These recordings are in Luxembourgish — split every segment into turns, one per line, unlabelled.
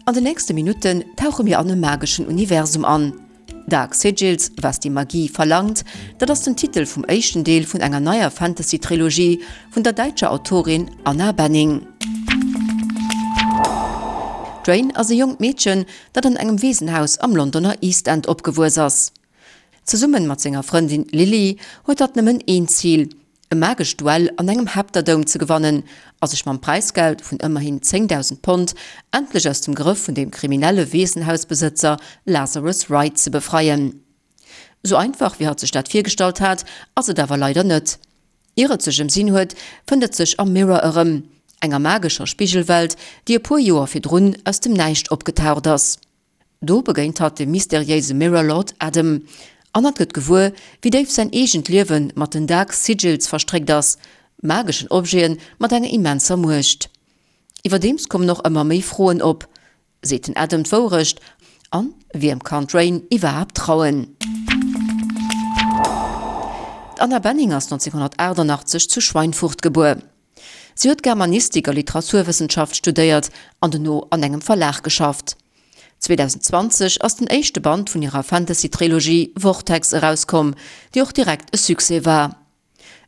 An de nächste Minutten tauche mir an e mageschen Universum an. Dark Sigils, Was die Magie verlangt, dat ass den Titel vum éischten Deel vun enger neier Fantasy-Trilogie vun der däitscher Autorin Anna Benning. D'Rain ass e jonkt Meedchen, dat an engem Weesenhaus am Londoner East End opgewuess ass. Zesummen mat senger Frëndin Lily huet hatt nëmmen een Zil, e magescht Duell an engem Heptadome ze gewannen a sech mam Präisgeld vun ëmmerhin 10.000 Pond endlech aus dem Grëff vun dem kriminelle Weesenhausbesëtzer Lazarus Wright ze befreien. Sou einfach wéi hatt sech dat virgestallt hat, ass et awer leider net. Ier et sech ëmsinn huet, fënnt et sech am Mirror erëm, enger magescher Spigelwelt, déi e puer Joer virdrun aus dem Näischt opgetaucht ass. Do begéint hatt dem mysteriéise Mirror Lord Adam an hatt gëtt gewuer, wéi déif säin eegent Liewe mat den Dark Sigils verstréckt ass, mageschen Objete mat enger immenser Muecht. Iwwerdeems kommen och ëmmer méi Froen op, Seet den Adam d'Wourecht? An wiem kann d'Rain iwwerhaapt trauen? D'Anna Benning ass 1988 zu Schweinfurt gebuer. Si huet Germanistik a Literaturwëssenschaft studéiert an dono an engem Verlag geschafft. 2020 ass den éischte Band vun hirer Fantasy-Trilogie Vortex erauskomm, déi och direkt e Succès war.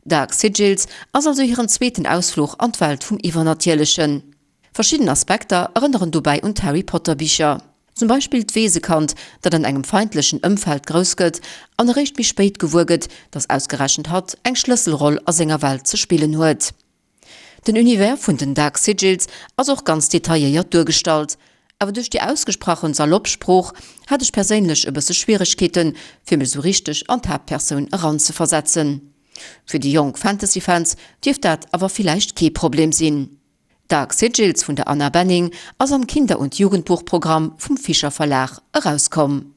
Dark Sigils ass also hiren zweeten Ausfluch an d'Welt vum Iwwernatierlechen. Verschidden Aspekter erënneren dobäi un d'Harry Potter Bicher. Zum Beispill d'Weesekand, dat an engem feindlechen Ëmfeld grouss gëtt an eréischt méi spéit gewuer gëtt, datt ausgerechent hatt eng Schlësselroll a senger Welt ze spillen huet. Den Univers vun den Dark Sigils ass och ganz detailléiert duergestallt, awer duerch déi ausgesprachen salopp Sprooch hat ech perséinlech e bësse Schwieregkeeten, fir mech sou richteg an d'Haaptpersoun eranzeversetzen. Fir déi jonk Fantasy-Fans dierft dat awer villäicht kee Problem sinn. Dark Sigils vun der Anna Benning ass am Kinder und Jugendbuchprogramm vum Fischer Verlag erauskomm.